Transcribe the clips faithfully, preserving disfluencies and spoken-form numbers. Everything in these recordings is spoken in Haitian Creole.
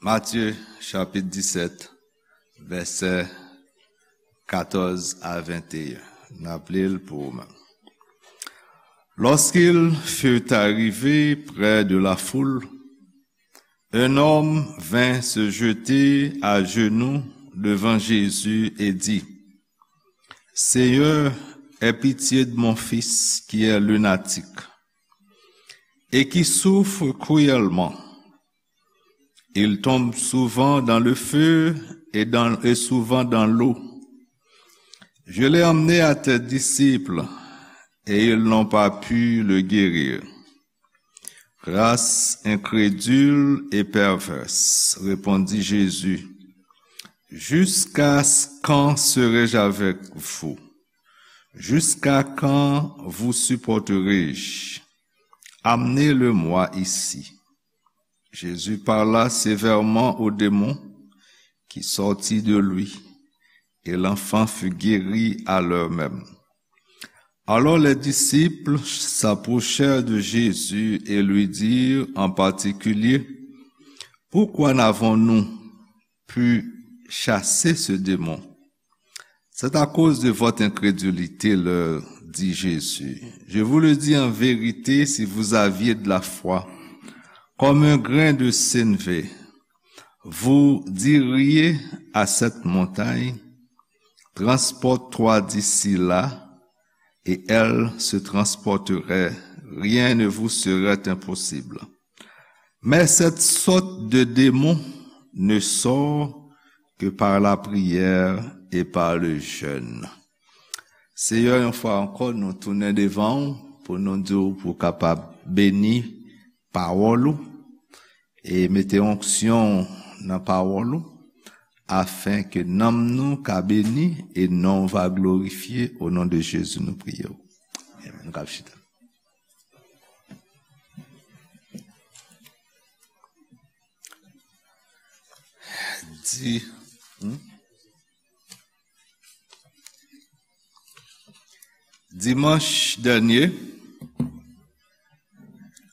Matthieu, chapitre dix-sept, versets quatorze à vingt et un. N ap li l pou ou menm. Lorsqu'ils furent arrivés près de la foule, un homme vint se jeter à genoux devant Jésus et dit, Seigneur, aie pitié de mon fils qui est lunatique et qui souffre cruellement. Il tombe souvent dans le feu et dans, et souvent dans l'eau. Je l'ai emmené à tes disciples et ils n'ont pas pu le guérir. Race incrédule et perverse, répondit Jésus, jusqu'à quand serai-je avec vous? Jusqu'à quand vous supporterai-je? Amenez-le-moi ici. Jésus parla sévèrement au démon qui sortit de lui, et l'enfant fut guéri à l'heure même. Alors les disciples s'approchèrent de Jésus et lui dirent en particulier, pourquoi n'avons-nous pu chasser ce démon? C'est à cause de votre incrédulité, leur dit Jésus. Je vous le dis en vérité, si vous aviez de la foi, comme un grain de sénévé, vous diriez à cette montagne, transporte-toi d'ici là, et elle se transporterait. Rien ne vous serait impossible. Mais cette sorte de démon ne sort que par la prière et par le jeûne. Seyè, yon fwa ankò, nou tounen devan w pou nou di w pou w kapab beni pawòl ou e mete onksyon nan pawòl ou, afen ke nanm nou ka beni e non w va glorifye. O non de Jezi, nou priye w. Amen. Nou kab chita. Di, hmm? Dimanch dènye,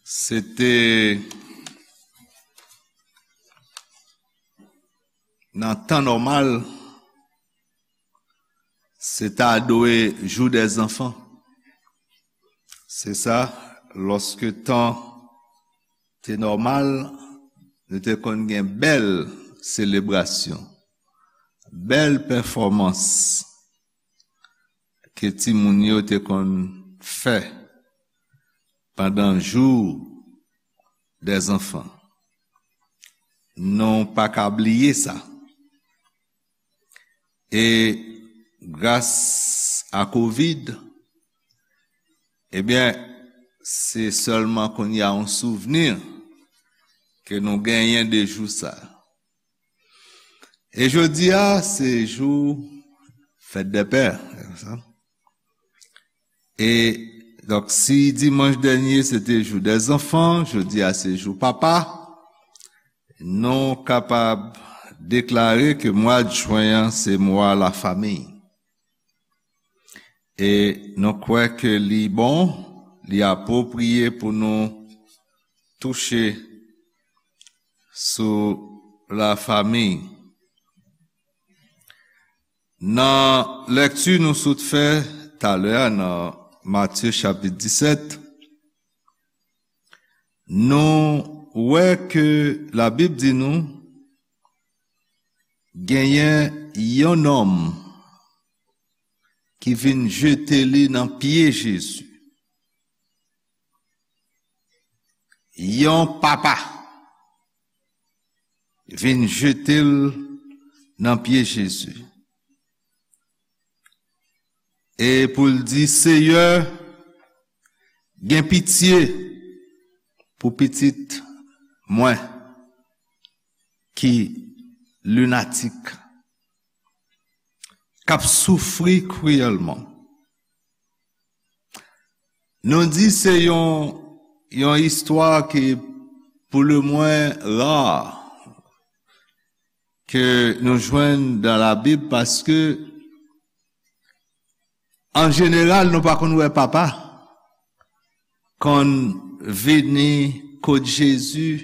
se te nan tan nòmal, se ta dwe jou dè zanfan. Se sa, lòske tan te nòmal, nou te konn gen bèl selebrasyon, bèl pèfòmans ke timoun yo te konn fè pandan jou dè zanfan. Nou pa ka bliye sa. E gras a kovid, ebyen, se sèlman kounye a yon souvni ke nou genyen de jou sa. E jodi a, se jou fèt dè pè. E, donk, si dimanch dènye se te jou dè zanfan, jodi a se jou papa, nou kapab deklare ke mwa jen an se mwa lafanmi. E nou kwè ke li bon, li apwopriye pou nou touche sou lafanmi. Nan lèkti nou sot fè talè a nan Matye chapit disèt, nou wè ke Labib di nou genyen yon nonm ki vin jete li nan pye Jezi. Yon papa vin jete l nan pye Jezi. E pou l di, Seyè, gen pitye pou pitit mwen ki linatik, k ap soufri kriyèlman. Nou di se yon, yon istwa ki, pou le mwen, ra ke nou jwenn dan Labib, paske, an jeneral, nou pa konn wè papa konn vini kot Jezi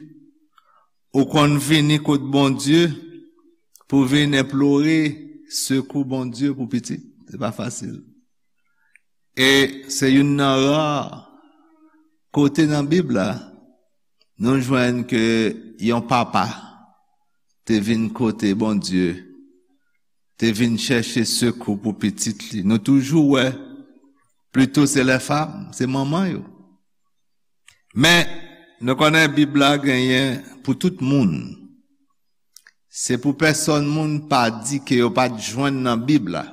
ou konn vini kot Bondye pou vin enplore sekou Bondye pou pitit. Se pa fasil. E se youn nan ra kote nan Bib la nou jwenn ke yon papa te vin kote Bondye, te vin chèche sekou pou pitit li. Nou toujou wè, plito se lè fam, se manman yo. Men, nou konnen Bib la genyen pou tout moun. Se pou pèsonn moun pa di ke yo pa t jwenn nan Bib la,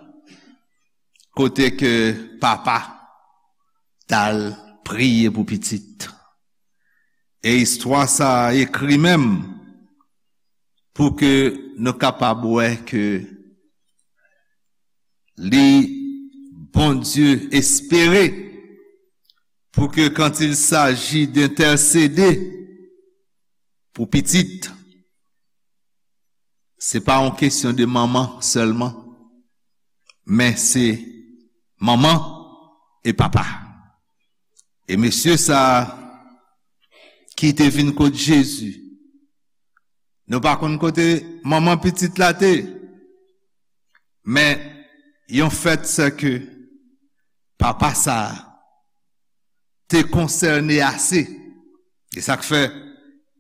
kote ke papa t al priye pou pitit. E istwa sa a ekri menm pou ke nou kapab wè ke li, Bondye espere pou ke quand il s'agit d'intercéder pou pitit, se pa yon kesyon de manman sèlman, men se manman e papa. E mesye sa a ki te vin kot Jezi, nou pa konn kote manman pitit la te, men yon fèt se ke papa sa a te konsène ase. E sa k fè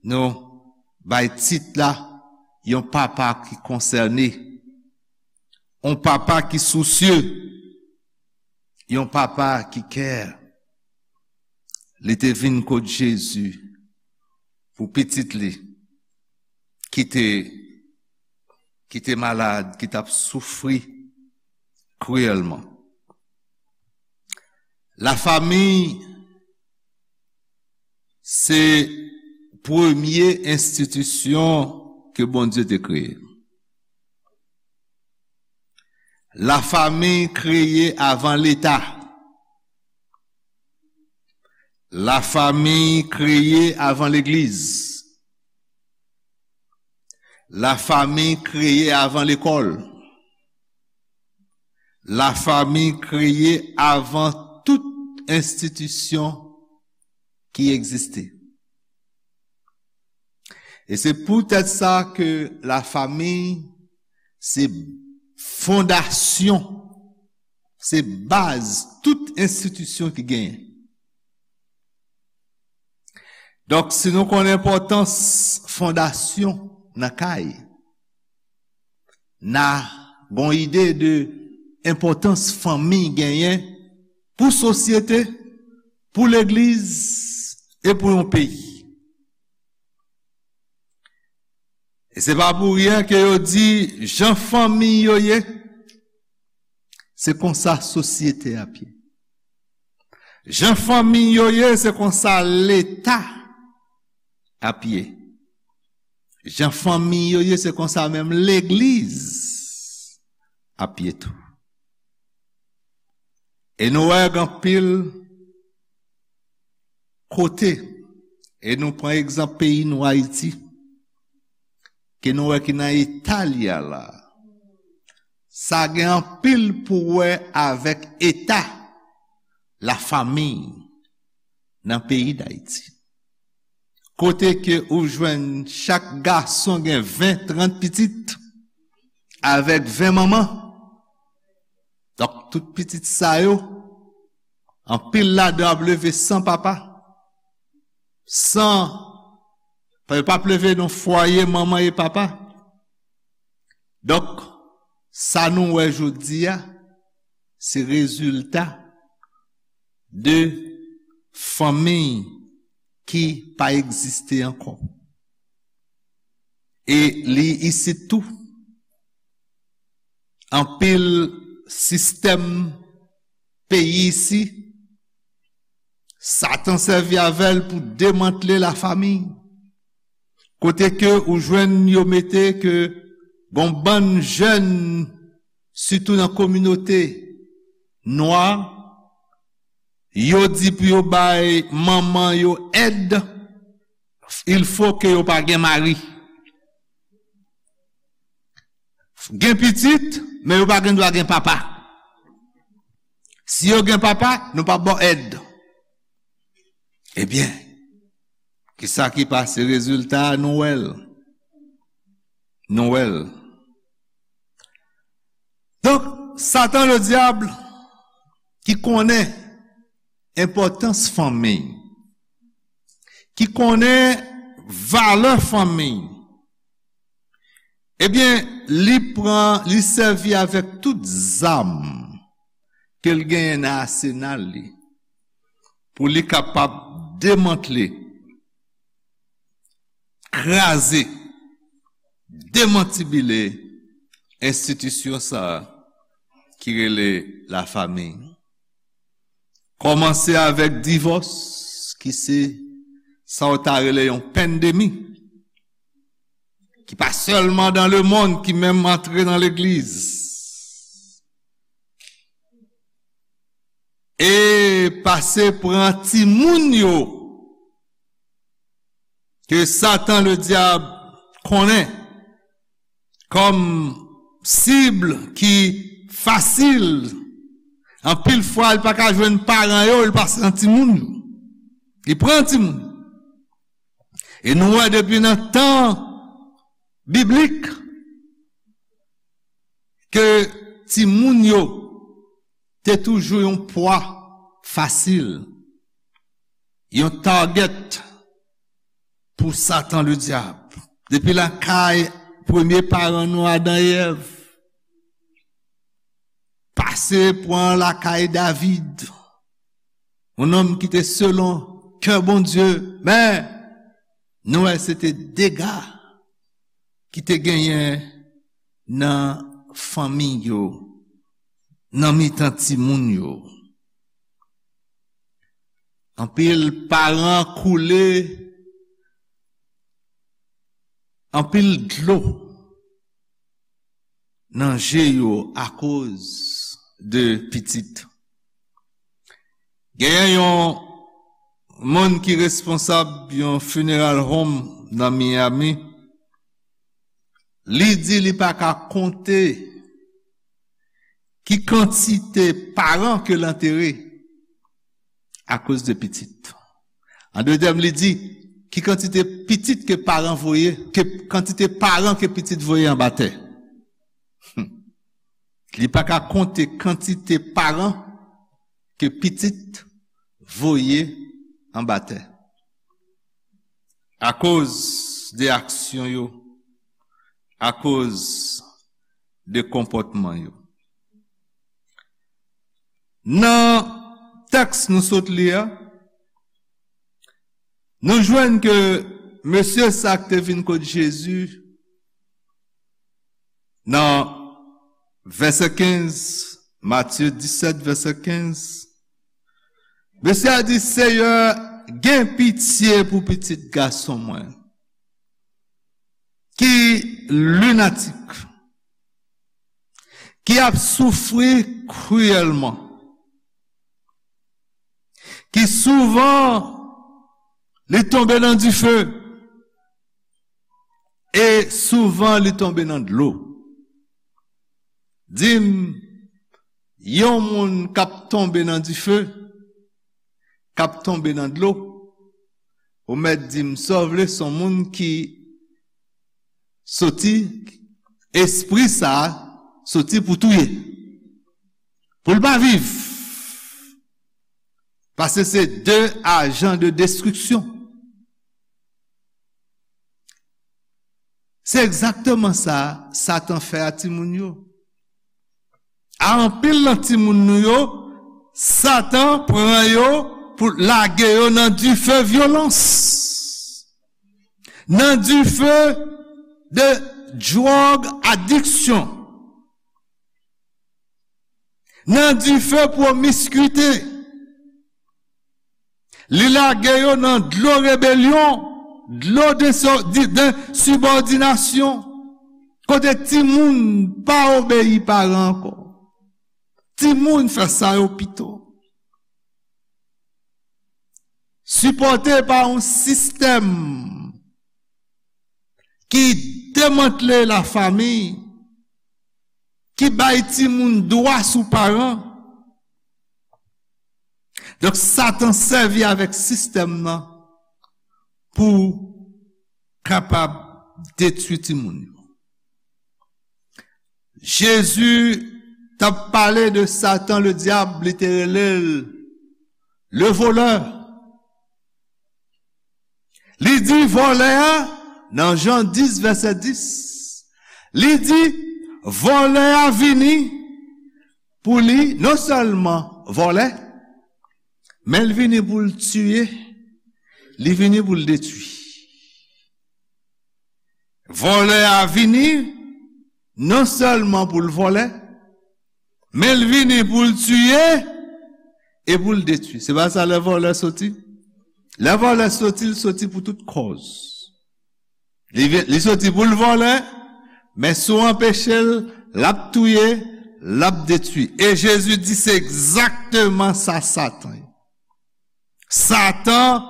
nou bay tit la yon papa ki konsène, yon papa ki sousye, yon papa ki care. Li te vin kot Jezi pou pitit li ki te, ki te malad, ki t ap soufri kriyèlman. Lafanmi se premye enstitisyon ke Bondye te kreye. Lafanmi kreye avan Leta. Lafanmi kreye avan legliz. Lafanmi kreye avan lekòl. Lafanmi kreye avan tout enstitisyon ki egziste. E se poutèt sa ke lafanmi se fondasyon, se baz tout enstitisyon ki genyen. Donk, si nou konn enpòtans fondasyon nan kay, n a gon ide de enpòtans fanmi genyen pou sosyete, pou legliz e pou yon peyi. E se pa pou ryen ke yo di jan fanmi yo ye, se konsa sosyete ap ye. Jan fanmi yo ye, se konsa Leta ap ye. Jan fanmi yo ye, se konsa menm legliz ap ye tou. E nou wè gen anpil kote, e nou pran egzanp peyi nou Ayiti, ke nou wè ki nan eta li a la. Sa gen anpil pou wè avèk eta lafanmi nan peyi Dayiti. Kote ke ou jwenn chak gason gen ven, trant pitit, avèk ven manman. Donk, tout pitit sa yo, anpil ladan ap leve san papa, san, pa, yo p ap leve nan fwaye manman e papa. Donk, sa nou wè jodi a, se rezilta de fanmi ki pa egziste ankò. E li isit tou. Anpil sistèm peyi isi, Satan sèvi avè l pou demantle lafanmi. Kote ke ou jwenn yo mete ke gon bann jèn, sitou nan kominote nwa, yo di pou yo bay manman yo èd, il faut que yo pa gen mari. Gen pitit, men yo pa gen dwa gen papa. Si yo gen papa, nou p ap ba w èd. Ebyen, kisa ki pase? Rezilta a, nou wè l. Nou wè l. Donk, Satan Ledyab ki konnen enpòtans fanmi, ki konnen valè fanmi, ebyen, li pran, li sèvi avèk tout zam ke l genyen nan asenal li pou li kapab demantle, kraze, demantibile enstitisyon sa a ki rele lafanmi. Kòmanse avèk divòs, ki se sa w ta rele yon pandemi, ki pa sèlman dans le monde, ki menm antre nan legliz. E pase pran timoun yo, ke Satan Ledyab konnen kòm sib ki fasil. Anpil fwa, li pa ka jwenn paran yo, li pase nan timoun yo. Li pran timoun. E nou wè depi nan tan biblik ke timoun yo te toujou yon pwa fasil, yon target pou Satan Ledyab. Depi lakay premye paran nou, Adan e Èv, pase pran lakay David, yon nonm ki te selon kè Bondye, men nou wè se te dega ki te genyen nan fanmi yo, nan mitan timoun yo. Anpil paran koule anpil dlo nan je yo akoz de pitit. Genyen yon moun ki responsab yon funeral home nan Miami. Li di li pa ka konte ki kantite paran ke l antere akoz de pitit. An de tèm, li di, ki kantite pitit ke paran voye, ke kantite paran ke pitit voye anba tè. Li pa ka konte kantite paran ke pitit voye anba tè. Akoz de aksyon yo, akoz de konpòtman yo. Nan tèks nou sot li a, nou jwenn ke mesye sa k te vin kot Jezi nan vèsè kenz, Matye disèt, vèsè kenz, mesye a di, Seyè, gen pitye pou pitit gason mwen, ki linatik, ki ap soufri kriyèlman, ki souvan li tonbe nan dife, e souvan li tonbe nan dlo. Di m, yon moun k ap tonbe nan dife, k ap tonbe nan dlo, ou mèt di m sa w vle, se yon moun ki soti, espri sa a soti pou touye, pou l pa viv. Paske se de ajan de destriksyon. Se egzakteman sa Satan fè a timoun yo. A anpil nan timoun nou yo, Satan pran yo pou lage yo nan dife vyolans, nan dife de dwòg adiksyon, nan dife pwomiskwite. Li lage yo nan dlo rebelyon, dlo de, de, de ensibòdinasyon, kote timoun pa obeyi paran ankò. Timoun fè sa yo pito. Sipòte pa yon sistèm ki demantle lafanmi, ki bay timoun dwa sou paran. Donk, Satan sèvi avèk sistèm nan pou kapab detwi timoun yo. Jezi t ap pale de Satan, le dyab, li te rele l le volè. Li di vòlè a, nan Jan dis, vèsè dis, li di, vòlè a vini pou li non sèlman vòlè, men l vini pou l tiye, li vini pou l detwi. Vòlè a vini non sèlman pou l vòlè, men l vini pou l tiye e pou l detwi. Se pa sa lè vòlè soti? Lè vòlè soti, l soti pou tout kòz. Li, vi- li soti pou l vòlè, men si w anpeche l, l ap touye, l ap detwi. E Jezi di se egzakteman sa Satan ye. Satan,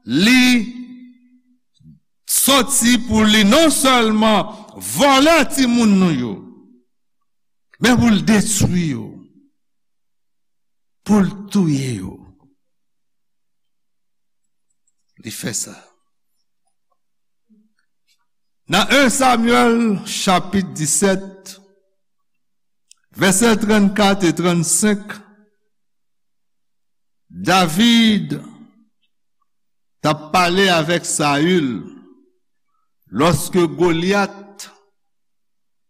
li soti pou li non sèlman vòlè timoun nou yo, men pou l detwi yo, pou l touye yo. Li fè sa. Nan en Samyèl chapit disèt, vèsè trannkat e trannsenk, David t ap pale avèk Sayil lòske Golyat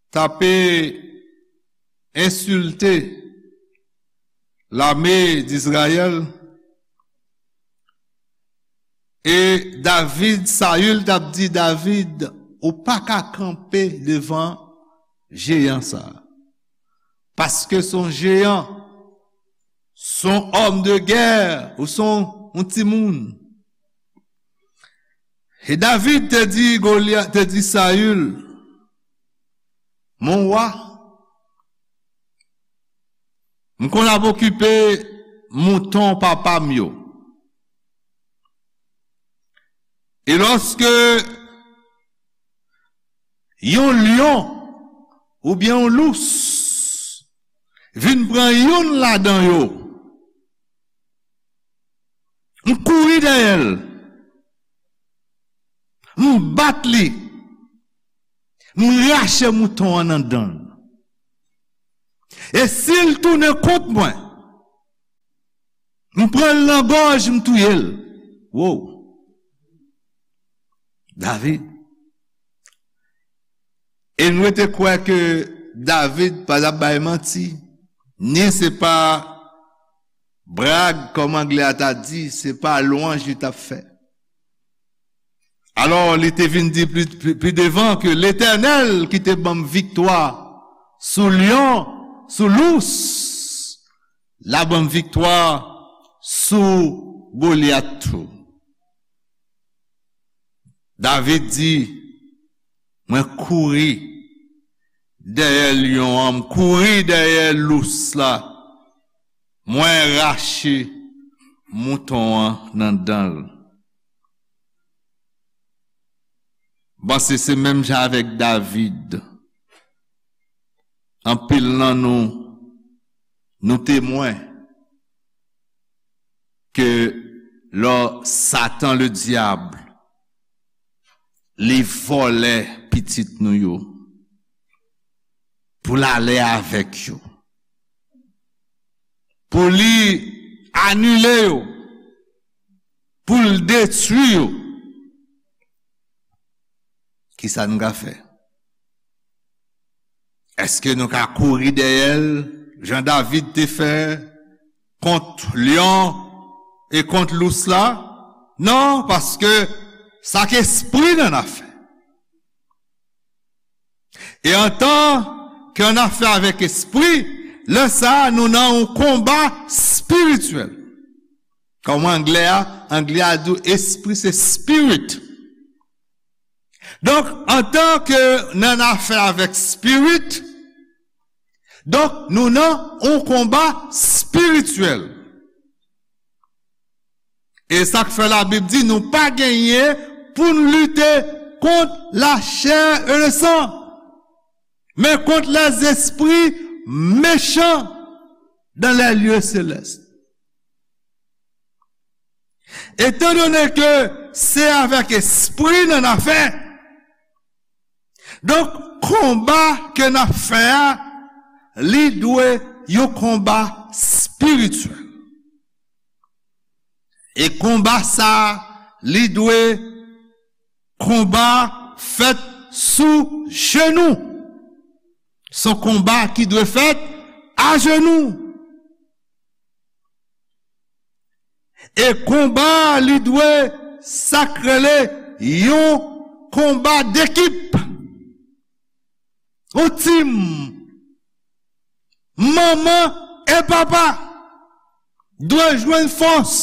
t ape ensilte lame d Izrayèl. E David, Sayil t ap di David, ou pa ka kanpe devan jeyan sa a. Paske se yon jeyan, se yon òm de gè, ou se yon, yon timoun. E David te di Golyat, te di Sayil, mon wa, m konn ap okipe mouton papa m yo. E lòske yon lyon oubyen yon lous vin pran youn ladan yo, m kouri dèyè l, m bat li, m rache mouton an nan dan l. E si l tounen kont mwen, m pran l nan gòj, m touye l. Wow! David. E nou rete kwè ke David pa t ap bay manti, ni se pa brag, kòm anglè a ta di, se pa lwanj li t ap fè. Alò, li te vin di pli, pli, pli devan ke Letènèl ki te ban m viktwa sou lyon, sou lous, l a ban m viktwa sou Golyat tou. David di, mwen kouri dèyè lyon an, m kouri dèyè lous la, mwen rache mouton an nan dan l. M panse se menm jan avèk David. Anpil nan nou, nou temwen ke lò Satan le dyab, li vòlè pitit nou yo, pou l ale avèk yo, pou li anile yo, pou l detwi yo, kisa n ka fè? Èske nou ka kouri dèyè l, jan David te fè kont lyon e kont lous la? Non, paske sa k espri n ann afè. E antan ke n ann afè avèk espri, lè sa a, nou nan yon konba espirityèl. Kòm anglè a, anglè a di w espri se spirit. Donk, antan ke n ann afè avèk spirit, donk, nou nan yon konba espirityèl. E sa k fè Labib di nou pa genyen pou n lite kont lachè e lesan, men kont lèzespri mechan dans les lieux célestes. Etandone ke se avèk espri n ann afè, donk, Konba ke n ap fè a, li dwe yon konba espirityèl. E konba sa a, li dwe konba fèt sou jenou. Se yon konba ki dwe fèt ajenou. E konba a, li dwe sa k rele yon konba dekip. Yon tim. Manman e papa dwe jwenn fòs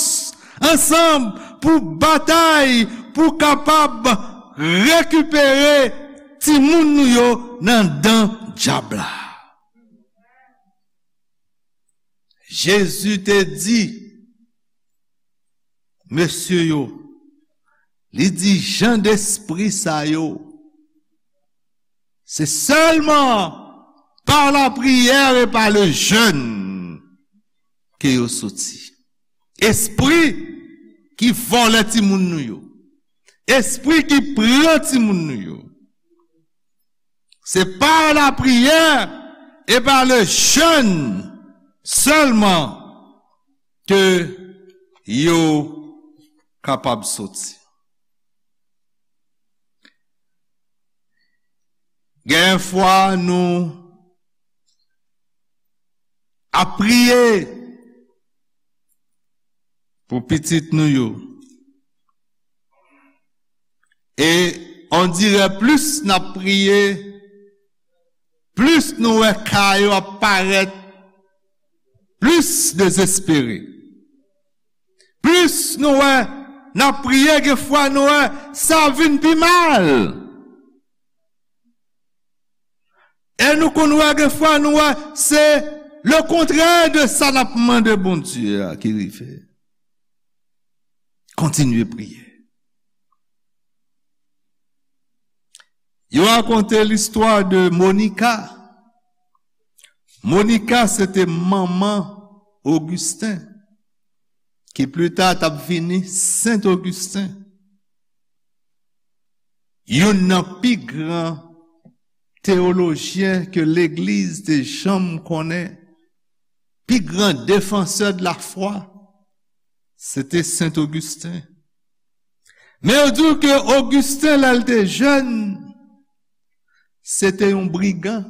ansanm pou batay, pou kapab rekipere timoun nou yo nan dan dyab la. Jezi te di mesye yo, li di, jan despri sa yo, se sèlman pa lapriyè e pa le jèn ke yo soti. Espri ki vòlè timoun nou yo, espri ki pran timoun nou yo, se pa lapriyè e pa le jèn sèlman ke yo kapab soti. Gen fwa nou ap priye pou pitit nou yo. E on dirè plis n ap priye, plis nou wè ka yo ap parèt plis dezespere. Plis nou wè n ap priye, gen fwa nou wè sa vin pi mal. E nou konn wè gen fwa nou wè se le kontrè de sa n ap mande Bondye a ki rive. Kontinye priye. Yo rakonte listwa de Monica. Monica se te manman Augustin, ki pli ta t ap vini Sen Augustin. Youn nan pi gran teyolojyen ke legliz te janm konnen, pi gran defansè de la fwa, se te Sen Augustin. Men yo di w ke Augustin, lè l te jèn, se te yon brigan,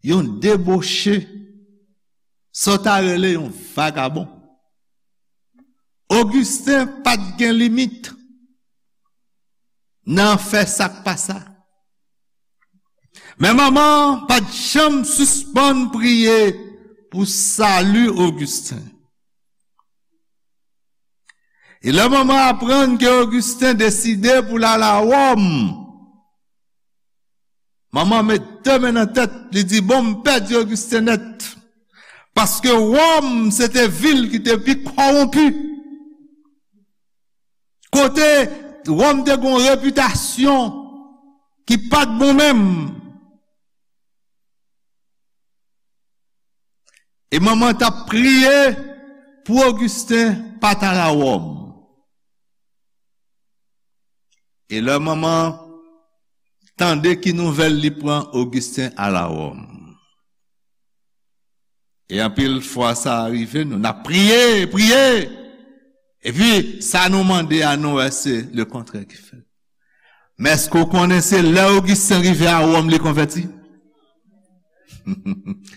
yon deboche, sa w ta rele yon vagabon. Augustin pa t gen limit nan fè sa k pa sa. Men manman pa t janm sispann priye pou sali Augustin. E lè manman aprann ke Augustin deside pou l al a Wòm, manman met de men nan tèt, li di, "Bon, m pèdi Augustin nèt." Paske Wòm, se te vil ki te pi kòwonpi. Kote Wòm te gen yon repitasyon ki pa t bon menm. E manman t ap priye pou Augustin pa t al a Wòm. E lè manman tande ki nouvèl li pran, Augustin al a Wòm. E anpil fwa sa rive nou, n ap priye, priye. Epi, sa nou mande a, nou wè se le kontrè ki fèt. Men èske w konnen se lè Augustin rive a Wòm li konvèti?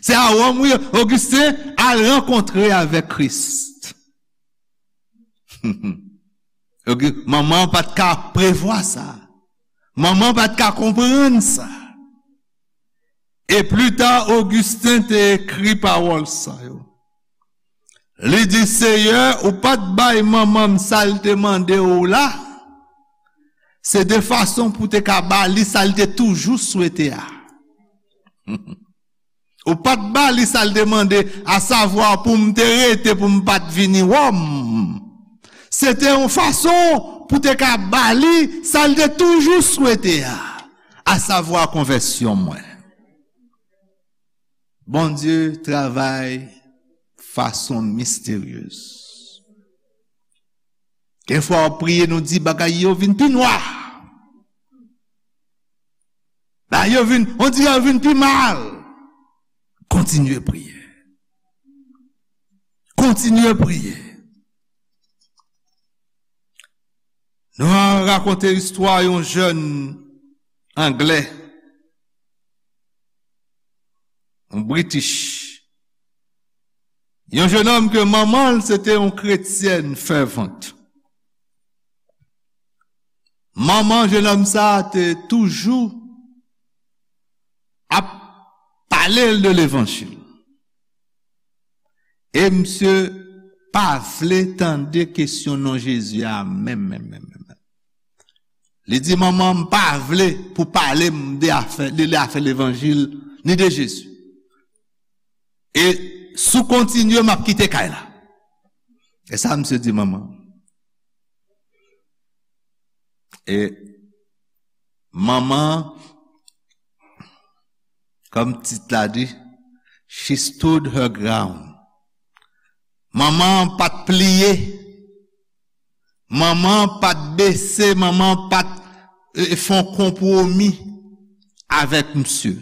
Se a Wòm, wi, Augustin al rankontre avèk Kris. Augustin, manman pa t ka prevwa sa. Manman pa t ka konprann sa. E pli ta, Augustin te ekri pawòl sa yo. Li di, "Seyè, ou pa t bay manman m sa l te mande w la, se de fason pou w te ka ba li sa l te toujou swete a." Ou pa t ba li sa l te mande, asavwa pou m te rete, pou m pa t vini Wòm. Se te yon fason pou te ka ba li sa l te toujou swete a, asavwa konvèsyon mwen. Bondye travay fason misteryez. Gen fwa w ap priye, nou di bagay yo vin pi nwa. Yo vin, on dirè yo vin pi mal. Kontinye priye. Kontinye priye. Nou rakonte istwa yon jèn anglè, yon British. Yon jennonm ke manman l se te yon kretyèn fèvant. Manman jennonm sa a te toujou ap pale l de levanjil. E misye pa vle tande kesyon non Jezi a menm, menm, menm, menm. Li di, "Manman, m pa vle pou pale m de afè, de, de afè levanjil, ni de Jezi. E si w kontinye, m ap kite kay la." E sa misye di manman. E manman, kòm tit la di, she stood her ground. Manman pa t pliye. Manman pa t bese, manman pa t, e, fè yon konpwomi avèk misye.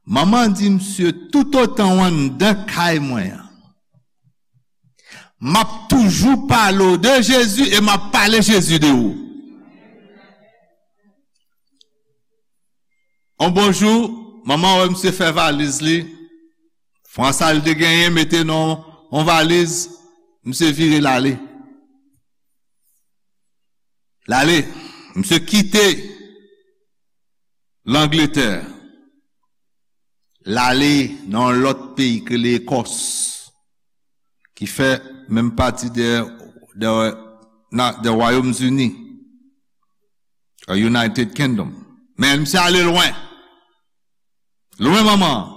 Manman di misye, "Toutotan w anndan kay mwen an, m ap toujou pale w de Jezi e m ap pale Jezi de ou." On bon jou, manman wè misye fè valiz li, fran sa l te genyen, mete nan on valiz, misye vire l ale. L ale, misye kite Langletè. L ale nan yon lòt peyi ki rele Ekòs, ki fè menm pati de, de, na, de Wayòm Zini, a United Kingdom. Men misye ale lwen. Lwen manman an.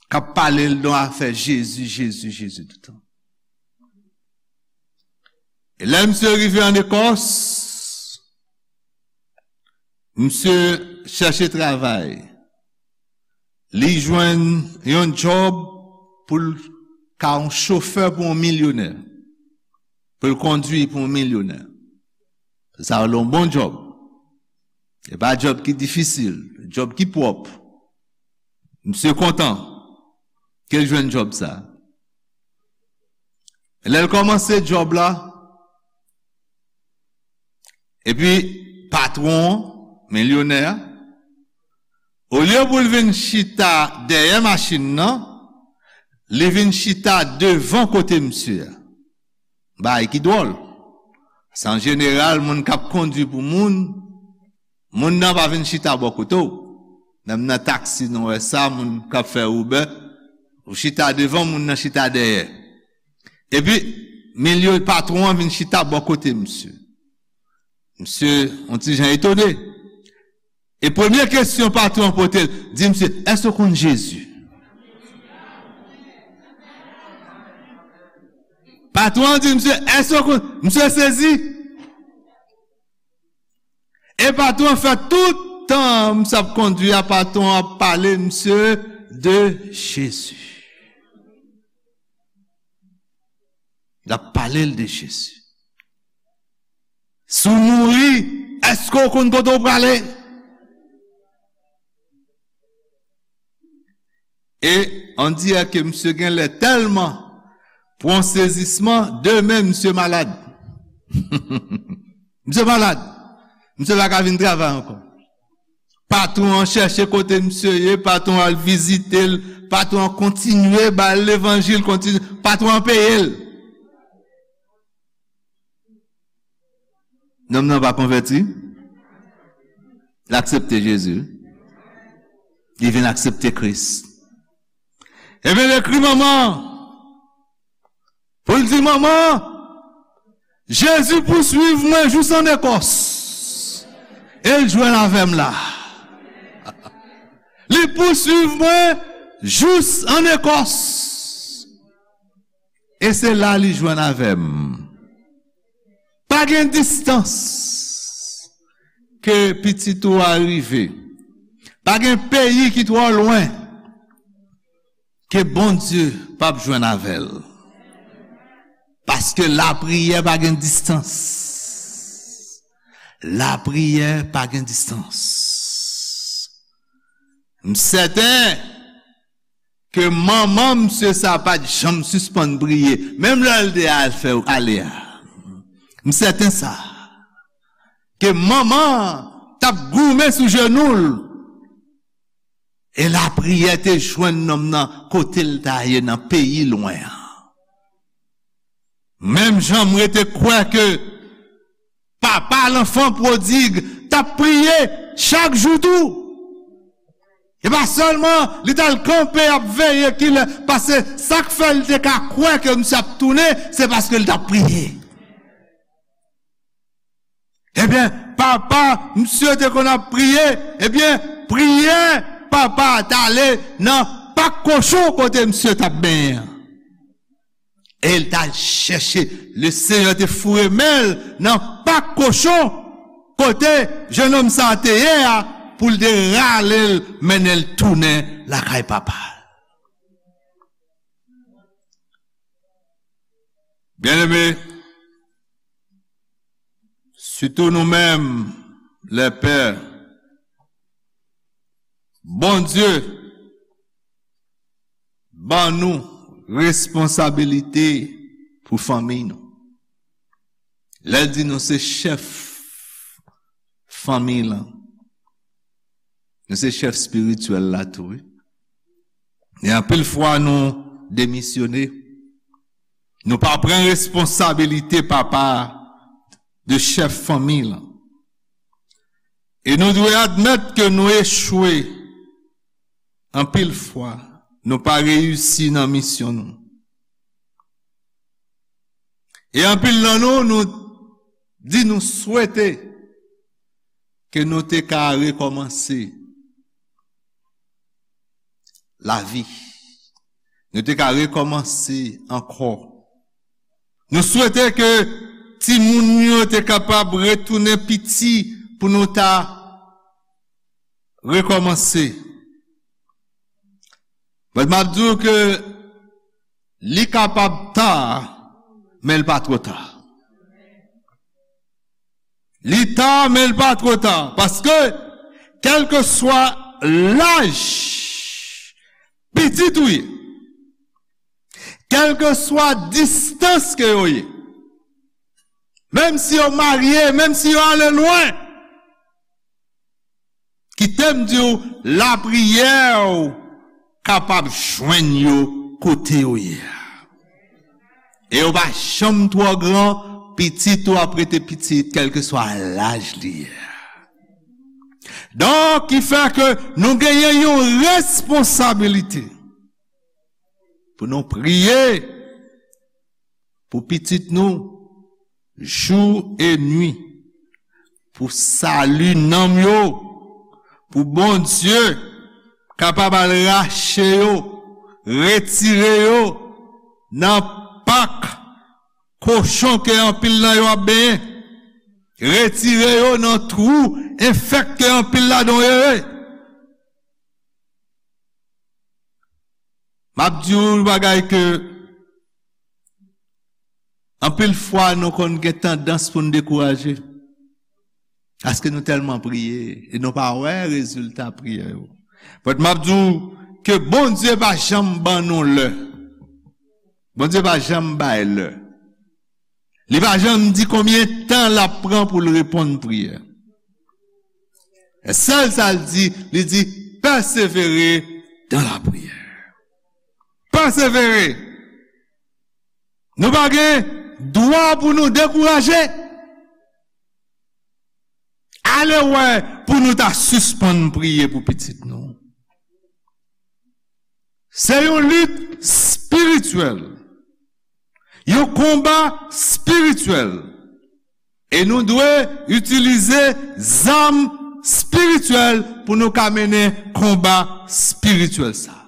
K ap pale l de afè Jezi, Jezi, Jezi toutan. E lè misye rive ann Ekòs, misye chèche travay. Li jwenn yon djòb pou l ka yon chofè pou yon milyonè. Pou l kondui pou yon milyonè. Sa yon bon djòb. E pa djòb ki difisil, djòb ki pwòp. Misye kontan ke l jwenn djòb sa. Lè l kòmanse djòb la, epi patwon an, milyonè a, olye pou l vin chita dèyè machin nan, li vin chita devan kote misye a. Bagay ki dwòl. Se an jeneral, moun k ap kondui pou moun, moun nan pa vin chita bò kote w. Menm nan taksi, nou wè sa, moun k ap fè Uber, ou chita devan, moun nan chita dèyè. Epi, milye patwon an vin chita bò kote misye. Misye, yon ti jan etone. E premye kesyon patwon an pote l, di misye, "Èske w konn Jezi?" Patwon an di misye, "Èske w konn?" Misye sezi. E patwon an fè tout tan misye ap kondui a, patwon an ap pale misye de Jezi. L ap pale l de Jezi. Si w mouri, èske w konn kote w prale? E on dirè ke misye genlè tèlman pran sezisman, demen misye malad. Misye malad. Misye pa ka vin travay ankò. Patwon an chèche kote misye ye, patwon an al vizite l, patwon an kontinye ba l levanjil, kontinye, patwon an peye l. Nonm nan pa konvèti. L aksepte Jezi. Li vin aksepte Kris. Ebyen, l ekri manman an pou l di, "Manman, Jezi pouswiv mwen jous an Ekòs. E l jwenn avè m la. Li pouswiv mwen jous an Ekòs." E se la li jwenn avè m. Pa gen distans ke pitit ou a rive. Pa gen peyi ki twò lwen ke Bondye p ap jwenn avè l. Paske lapriyè pa gen distans. Lapriyè pa gen distans. M sèten ke manman misye sa pa t janm sispann priye, menm lè l te al fè ale a. M sèten sa. Ke manman t ap goumen sou jenou l. E lapriyè te jwenn nonm nan kote l ta ye nan peyi lwen an. Menm jan m rete kwè ke papa lanfan pwodig t ap priye chak jou tou. E pa sèlman li t al kanpe ap veye kilè, paske sa k fè l te ka kwè ke misye ap tounen, se paske l t ap priye. Ebyen, papa misye te konn ap priye, ebyen, priyè papa a t ale nan pak kochon kote misye t ap benyen an. E l t al chèche, Lesenyè te foure men l nan pak kochon kote jennonm sa a te ye a, pou l te rale l, mennen l tounen lakay papa l. Byeneme, sitou nou menm, lè pè, Bondye ban nou responsabilite pou fanmi nou. Lè l di nou se chèf fanmi lan, nou se chèf espirityèl la tou, wi. E anpil fwa nou demisyone. Nou pa pran responsabilite papa de chèf fanmi lan. E nou dwe admèt ke nou echwe anpil fwa, nou pa reyisi nan misyon nou. E anpil nan nou, nou di nou swete ke nou te ka rekòmanse lavi. Nou te ka rekòmanse ankò. Nou swete ke timoun yo te kapab retounen piti pou nou ta rekòmanse. But m ap di w ke li kapab ta, men l pa twò ta. Li ta, men l pa twò ta. Paske, kèlkeswa laj pitit ou ye, kèlkeswa distans ke yo ye, menm si yo marye, menm si yo ale lwen, kite m di w, lapriyè w kapab jwenn yo kote yo ye a. E yo pa janm twò gran, pitit ou ap rete pitit, kèlkeswa laj li ye a. Donk, ki fè ke nou genyen yon responsabilite pou nou priye pou pitit nou, jou e nwi, pou sali nanm yo, pou Bondye kapab al rache yo, retire yo nan pak kochon ke anpil nan yo ap benyen, retire yo nan twou enfèk ke anpil ladan yo ye. M ap di w yon bagay ke anpil fwa nou konn gen tandans pou n dekouraje. Paske nou tèlman priye e nou pa wè rezilta priyè yo. But m ap di w ke Bondye pa janm ban nou lè. Bondye pa janm bay lè. Li pa janm di konbyen tan l ap pran pou l reponn priyè. Sèl sa l di, li di, pèsevere dans la prière. Pèsevere. Nou pa gen dwa pou nou dekouraje. Ale wè pou nou ta sispann priye pou pitit nou. Se yon lit espirityèl. Yon konba espirityèl. E nou dwe itilize zam espirityèl pou nou ka mennen konba espirityèl sa.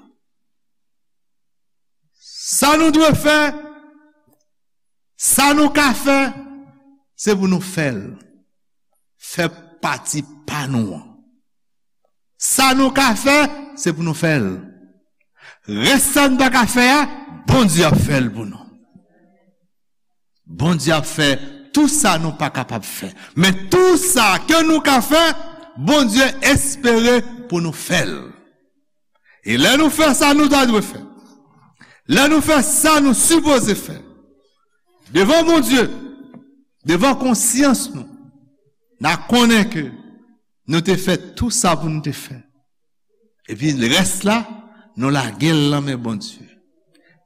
Sa nou dwe fè, sa nou ka fè, se pou nou fè l. Fè pati pa nou an. Sa nou ka fè, se pou nou fè l. Rès sa n pa ka fè a, Bondye ap fè l pou nou. Bondye ap fè tou sa nou pa kapab fè. Men tou sa ke nou ka fè, Bondye espere pou nou fè l. E lè nou fè sa nou ta dwe fè, lè nou fè sa nou sipoze fè, devan Bondye, devan konsyans nou, n a konnen ke nou te fè tou sa pou nou te fè. Epi rès la, nou lage l nan men Bondye.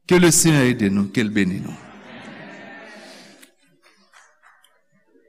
Ke le Senyè ede nou, ke l beni nou.